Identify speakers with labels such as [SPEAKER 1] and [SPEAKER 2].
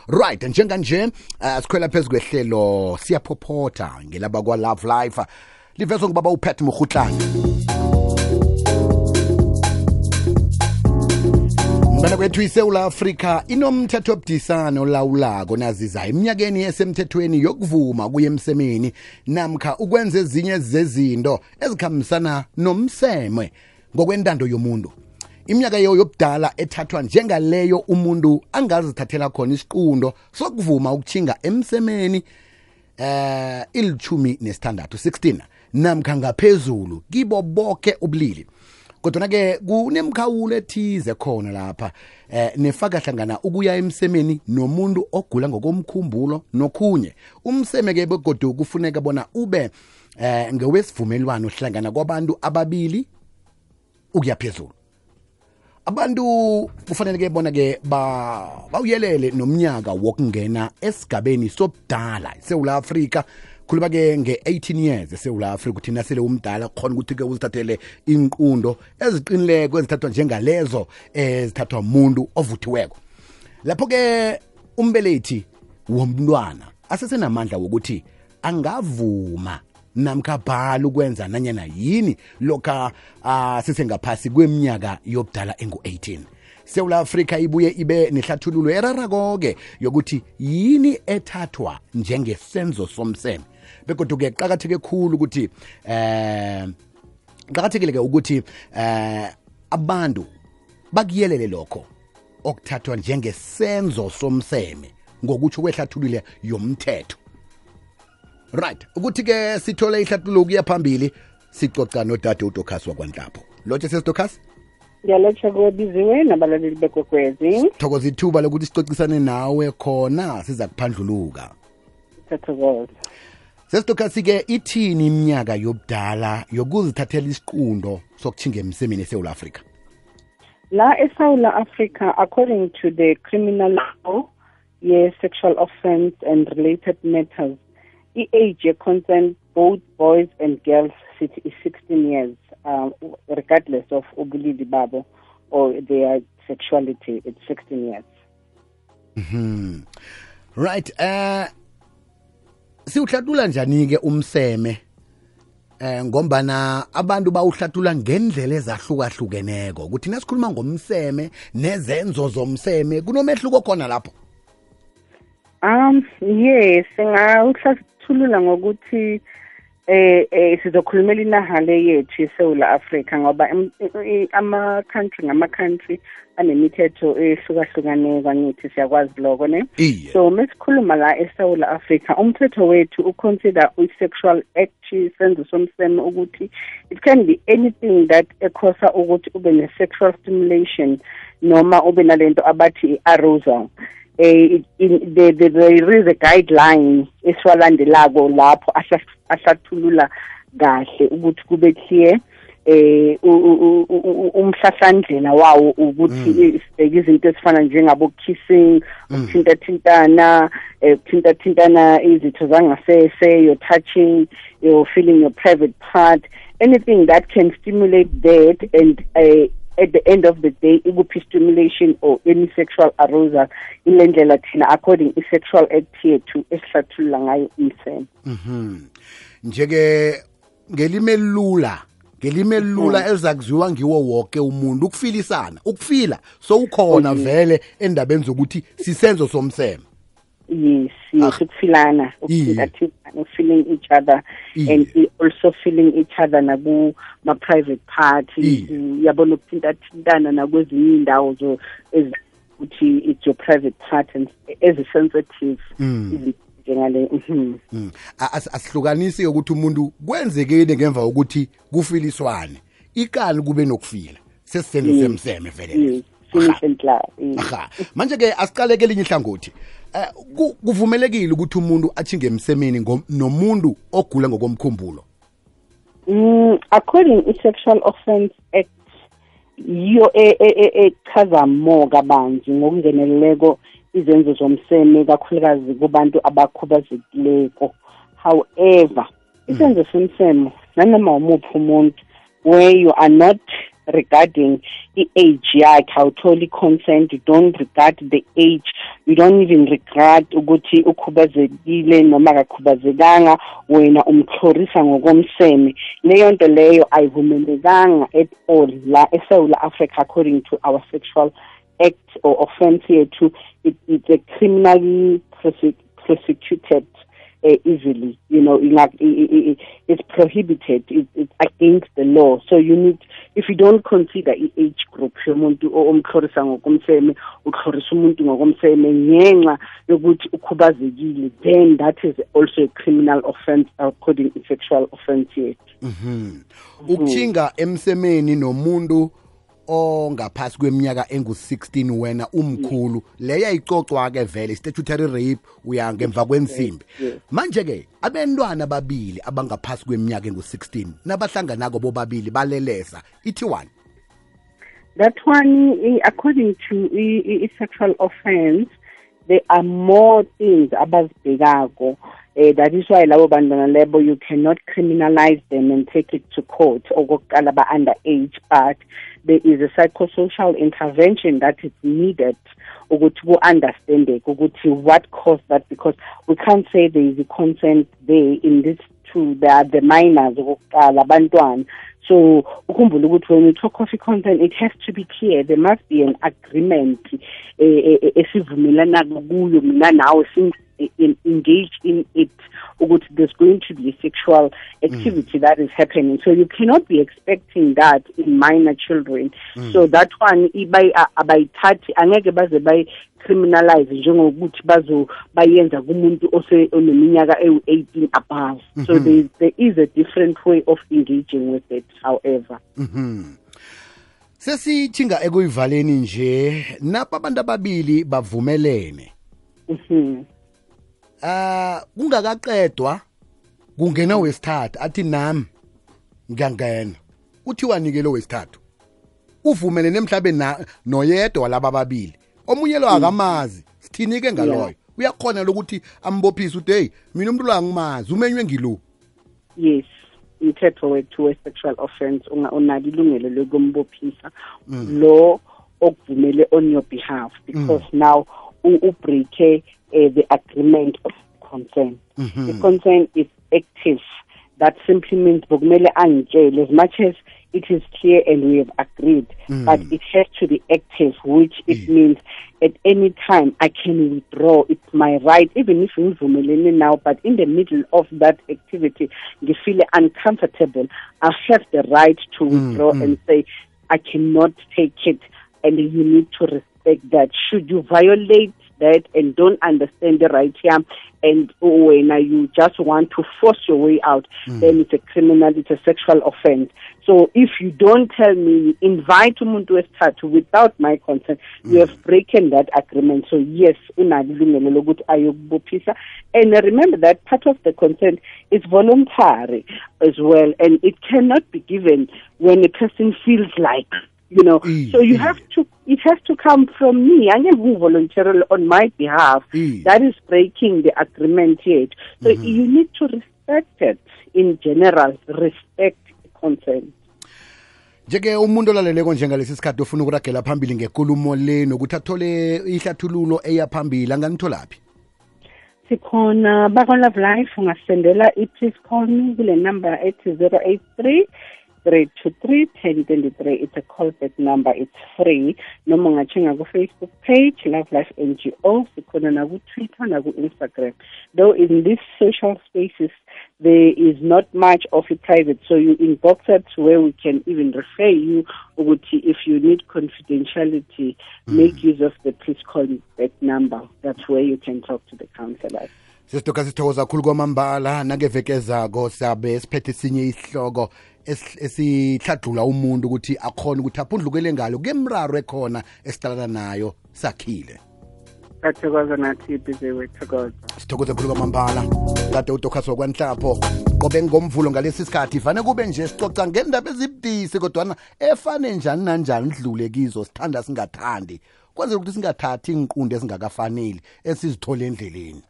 [SPEAKER 1] Right, njenganje sikhwela phezu kwehlelo siyaphophotha ngelaba kwa Love Life livezwe ngubaba uPat Mokhutlana. Mbana kwethu iSouth Africa inomthetho obudisana olawulako naziza eminyakeni esemthethweni yokuvuma kuye emsemeni namkha ukwenza ezinye zezinto ezikhambisana nomseme ngokwentando yomuntu. Iminyaka yobudala ethathwa njengaleyo umuntu angazithathela khona isiqundo sokuvuma ukuthinga emsemeni ilithumi nesithandathu 16 namkha ngaphezulu kibo bonke ubulili. Kodwa ke kunemkhawulo ethize khona lapha nefaka hlangana ukuya emsemeni nomuntu ogula ngokomkhumbulo nokhunye. Umseme ke begodu kufuneka bona ube ngewesivumelwano hlangana kwabantu ababili ukuya phezulu. Abantu kufanele ke bona ke bawuyelele nomnyaka wokungena esigabeni sobudala eSouth Africa. Khuluma ke nge-18 years eSouth Africa uthi nasele umdala khona ukuthi ke uzithathele inqundo eziqinileko ezithathwa njengalezo ezithathwa umuntu ovuthiweko. Lapho ke umbelethi womntwana asesenamandla wokuthi angavuma namkha bhala ukwenza nanyana yini lokha sisengaphasi kweminyaka yobudala engu-18. South Africa ibuye ibe nehlathululo erarako ke yokuthi yini ethathwa njengesenzo somseme. Bekodwa ke qakatheke khulu ukuthi qakathekile ke ukuthi abantu bakuyelele lokho okuthathwa njengesenzo somseme ngokuthi kwehlathulule yomthetho. Right, ukuthi ke sithole ihlathululo ukuya phambili sicoca nodade uDokas wakwanhlapho. Lotshe sesiDokas?
[SPEAKER 2] Ngiyalotsha kubiziwe nabalaleli bekwekwezi.
[SPEAKER 1] Thokoza ithuba lokuthi sicocisane nawe khona siza kuphandluluka.
[SPEAKER 2] Thathokoza.
[SPEAKER 1] SesiDokas ke ithini iminyaka yobudala yokuzithathela isiqundo sokuthinga emsemeni eSouth Africa?
[SPEAKER 2] La eSouth Africa, according to the criminal law, sexual offense and related matters, the age consent both boys and girls is 16 years, regardless of ubulili babo or their sexuality. It's 16 years.
[SPEAKER 1] Right. Siuhlathula njani ke umseme ngombana abantu bawuhlathula ngendlela ezahlukahlukeneko ukuthi nasikhuluma ngomseme nezenzo zomseme kunomehluko khona lapho.
[SPEAKER 2] Yes, ngawuhlathulula ngokuthi sizokhulumela inahale yethu eSouth Africa ngoba ama-country anemithetho ehlukahlukaneko angithi siyakwazi lokho ne. So mesikhuluma la eSouth Africa umthetho wethu uconsider i-sexual act isenzo somseme ukuthi it can be anything that ekhosa ukuthi ube ne-sexual stimulation noma ube nalento abathi i-arousal. There is a guideline esiwalandelako lapho ahlathulula kahle ukuthi kube clear umhlahlandlela wawo ukuthi izinto ezifana njengabo kissing, ukuthintathintana, izitho zangasese, you're touching, you're feeling your private part, anything that can stimulate that and at the end of the day ikuphi stimulation or any sexual arousal ilendlela thina according i-sexual act yethu esihlathulula ngayo umseme.
[SPEAKER 1] Njeke ngelime lula ezakuziwa ngiwo wonke umuntu ukufila so ukhona vele endabeni zokuthi sisenzo somseme.
[SPEAKER 2] Yes, ukufilana, feeling each other and also feeling each other ma private parties, yabona ukuthintathintana nakwezinye indawo ukuthi it's your private part and as a sensitive njengale.
[SPEAKER 1] Asihlukanisi ukuthi umuntu kwenzekeni ngemva ukuthi kufiliswane ikani kube nokufila sesisenzo semseme vele. Manje ke asiqale ke linye ihlangothi. Kuvumelekile ukuthi umuntu athinge emsemeni nomuntu ogula ngokomkhumbulo.
[SPEAKER 2] According to Sexual Offense Act yo echaza more kabanzi ngokungeneleleko izenzo zomseme kakhulukazi kubantu abakhubazekileko. However, isenzo somseme nanoma umuphi umuntu where you are not regarding the age yakhe, awutholi consent, you don't regard the age, you don't even regard ukuthi ukhubazekile noma akakhubazekanga, wena umxhorisa ngokomseme. Leyo nto leyo ayivumelekanga at all la eSouth Africa according to our sexual act or offense yethu. It's a criminally prosecuted easily, it's prohibited, it's against the law. So you need, if you don't consider age group yomuntu omxhorisa ngokomseme, uxhorisa umuntu ngokomseme ngenxa yokuthi ukhubazekile, then that is also a criminal offense according to sexual offense yethu.
[SPEAKER 1] Ukuthinga emsemeni nomuntu ongaphasi kweminyaka engu-16 wena umkhulu, leya icocwa ke vele statutory rape, uya ngemva kwensimbi. Manje ke abantwana babili abangaphasi kweminyaka engu-16 nabahlanganako bobabili balelesa, ithi one.
[SPEAKER 2] That one, according to sexual offense, there are more things abazibhekako. That is why labo bantwana lebo you cannot criminalize them and take it to court okokuqala ba underage, but there is a psychosocial intervention that is needed ukuthi ku understand ukuthi what caused that, because we can't say there is a consent there in this two. They are the minors okokuqala abantwana. So ukhumbula ukuthi when we talk of consent, it has to be clear. There must be an agreement esivumelana kuyo mina nawe engaged in it, there's going to be a sexual activity that is happening. So you cannot be expecting that in minor children. So that one abayithathi angeke baze criminalize njengokuthi bayenza kumuntu oneminyaka ewu-18 above. So there is a different way of engaging with it, however.
[SPEAKER 1] Sesithinga ekuyivaleni nje napa abantu ababili bavumelene. Kungakaqedwa kungena wesithathu athi nami ngiyangena, uthi wanikele wesithathu uvumelene emhlabeni noyedwa walaba ababili, omunye lo akamazi, sithinike ngaloyo uyakhona ukuthi ambophise uthi hey mina umuntu lo angimazi umenywe ngilo.
[SPEAKER 2] Yes, umthetho wethu we-sexual offense unalo ilungelo lokumbophisa lo okuvumele on your behalf, because now ubreake the agreement of consent. The consent is active. That simply means bokumele angitshele, as much as it is clear and we have agreed, but it has to be active, which it means at any time I can withdraw. It's my right, even if ngivumelene now, but in the middle of that activity, you feel uncomfortable, I have the right to withdraw and say, I cannot take it, and you need to respect that. Should you violate that and don't understand the right here, and when you just want to force your way out, then it's a criminal, it's a sexual offense. So if you don't tell me, invite umuntu wesithathu without my consent, you have broken that agreement. So yes, unalilungelo lokuthi ayokubophisa. And remember that part of the consent is voluntary as well, and it cannot be given when a person feels like, so you have to, it has to come from me. I never voluntarily on my behalf. That is breaking the agreement yet. So you need to respect it in general, respect consent.
[SPEAKER 1] Njeke umuntu olaleleko njengalesi sikhathi ofuna ukuragela phambili ngekulumo le nokuthi athole ihlathululo eyaphambili anganitholaphi?
[SPEAKER 2] Sikhona Love Life, ungasendela please call me kule number ethi 083 323-1023. It's a callback number. It's free. Noma ungachinga ku Facebook page Love Life NGO, sikhona na ku Twitter na ku Instagram. Though in these social spaces there is not much of it private, so you inbox us where we can even refer you. If you need confidentiality, make use of the please call back number. That's where you can talk to the counselors.
[SPEAKER 1] Sisitoka sithokoza kakhulu kwamambala nangevekezako sabe siphethe sinye isihloko esihlathula umuntu ukuthi akhona ukuthi aphundlukele ngalo kemraro ekhona esitalana nayo sakhile.
[SPEAKER 2] Sathokoza nathi bize wethokoza.
[SPEAKER 1] Sithokoza kakhulu kwamambala kade uDokhaso kwanhlapho qobe ngomvulo ngalesi sikhathi fane kube nje sicoca ngendaba ezibudisi kodwa efane njani nanjani idlule kizo sithanda singathandi kwenzela ukuthi singathathi inqunde ezingakafanele esizithola endleleni.